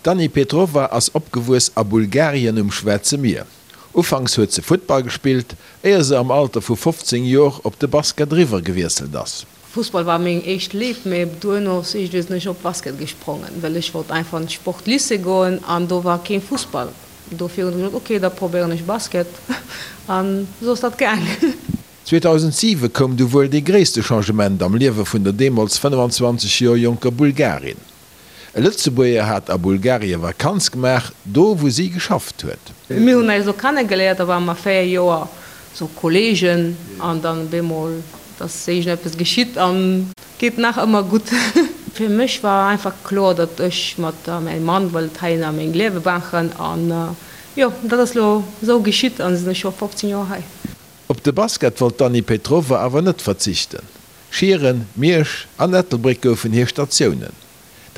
D'Dani Petrova ass opgewuess a Bulgarien um Schwaarze Mier. Ufanks huet se Futtball gespillt, éier se am Alter vu 15 Jor op de Basket eriwwer gewiesselt ass. Fussball war meng éischt Léift, mee duerno iergendwéi sinn ech op Basket gesprongen, well ech wollt einfach an d'Sportlycée goen an do war keen Fussball. Dofir hunn ech gesot, ok, da probéieren ech Basket an esou ass dat gaang. 2007 koum du wuel dee gréisste Changement am Liewe vun der deemools 25 Joer jonker Bulgarin. E Lëtzebuerger hat a Bulgarie Vakanz gemaach, do wou si geschafft huet. Mir hunn eis do kennegeléiert, da ware mer 4 Joer sou Kollegen an dann op eemol ass iergendeppes geschitt an geet nach ëmmer gutt. Fir mech war einfach kloer, datt ech mat mäi Mann wëllt heihinner meng Liewe maachen an jo, dat ass lo sou geschitt an sinn ech scho 15 Joer hei. Op de Basket wollt d'Dany Petrova awer net verzichten. Schieren, Miersch an Ettelbréck goufen hir Statiounen.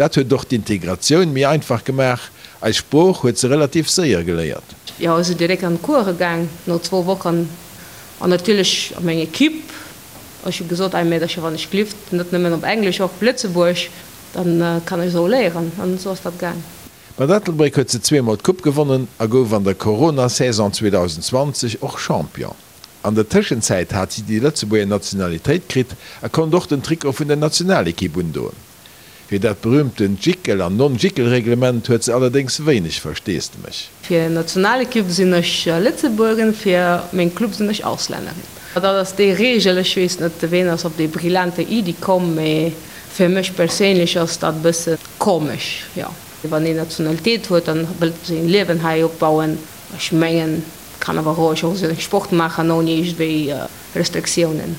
Dat huet och d'Integratioun méi einfach gemaach, eis Sprooch huet se relativ séier geléiert. Jo, ech sinn direkt an d'Course gaang no zwou Wochen an natierlech a meng Equipe. Ech hu gesot, Ei Meedercher, wann ech glift, net nëmmen op Englesch, och op Lëtzebuerg, dann kann ech esou léieren. An esou ass dat gaang. Mat Ettelbréck huet se zweemol d'Coupe gewonnen a gouf an der Corona-Saison 2020 och Champion. An der Tëschenzäit hat si déi Lëtzebuerger Nationalitéit kritt a konnt och den Trikot vun der Nationalekipp undoen. Fir dat berüümtent Jickel an Non-Jickel-Reglement huet se allerdéngs wéineg Versteesdemech. Fir Nationalekipp sinn ech Lëtzebuergerin, fir meng Club sinn ech Auslännerin. Dat ass déi Reegel. Ech weess net, ween ass op déi brillante Iddi komm, mee fir mech perséinlech ass dat e bësse komesch, jo. Wann een Nationalitéit huet, dann wëllt een seng Liewen hei opbauen. Ech mengen, kann awer roueg och seng Sport maachen ouni iergendwéi Restriktiounen.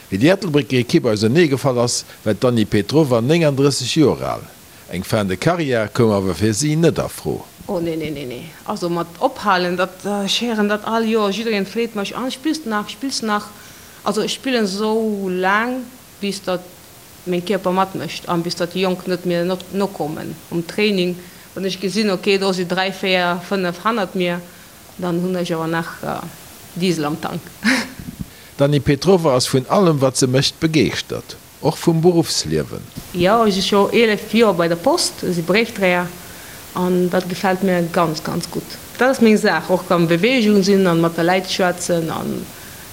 Wéi déi Ettelbrécker Ekipp ausernee gefall ass, war d'Dany Petrova 39 Joer al. Eng Fin de carrière koum awer fir si net a Fro. Oh nee nee nee nee, also mat ophalen, dat, ech héieren dat all Joer, jiddereen freet mech, an spills de nach, spills de nach? Also ech spillen esou laang bis datt meng Kierper matmécht an bis datt déi Jonk net mir nokommen um Training. Wann ech gesinn, ok do si 3, 4, 5 hannert mir, Dann hunn ech awer nach Diesel am Tank. D'Dany Petrova ass vun allem wat se mécht begeeschtert, och vum Beruffsliewen. Jo, ech si scho 11 Joer bei der Post, ech si Bréifdréier an dat gefält mir ganz, ganz gutt. Dat ass meng Saach, och am Beweegung sinn an mat de Läit schwätzen an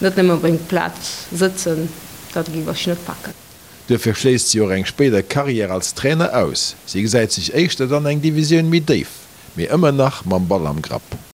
net nëmmen op eng Plaz sëtzen, dat géif ech net packen. Duerfir schléisst si och eng spéider Karriär als Trainer aus. Si gesäit sech éischter dann eng Divisioun méi déif, mee ëmmer nach mam Ball am Grapp.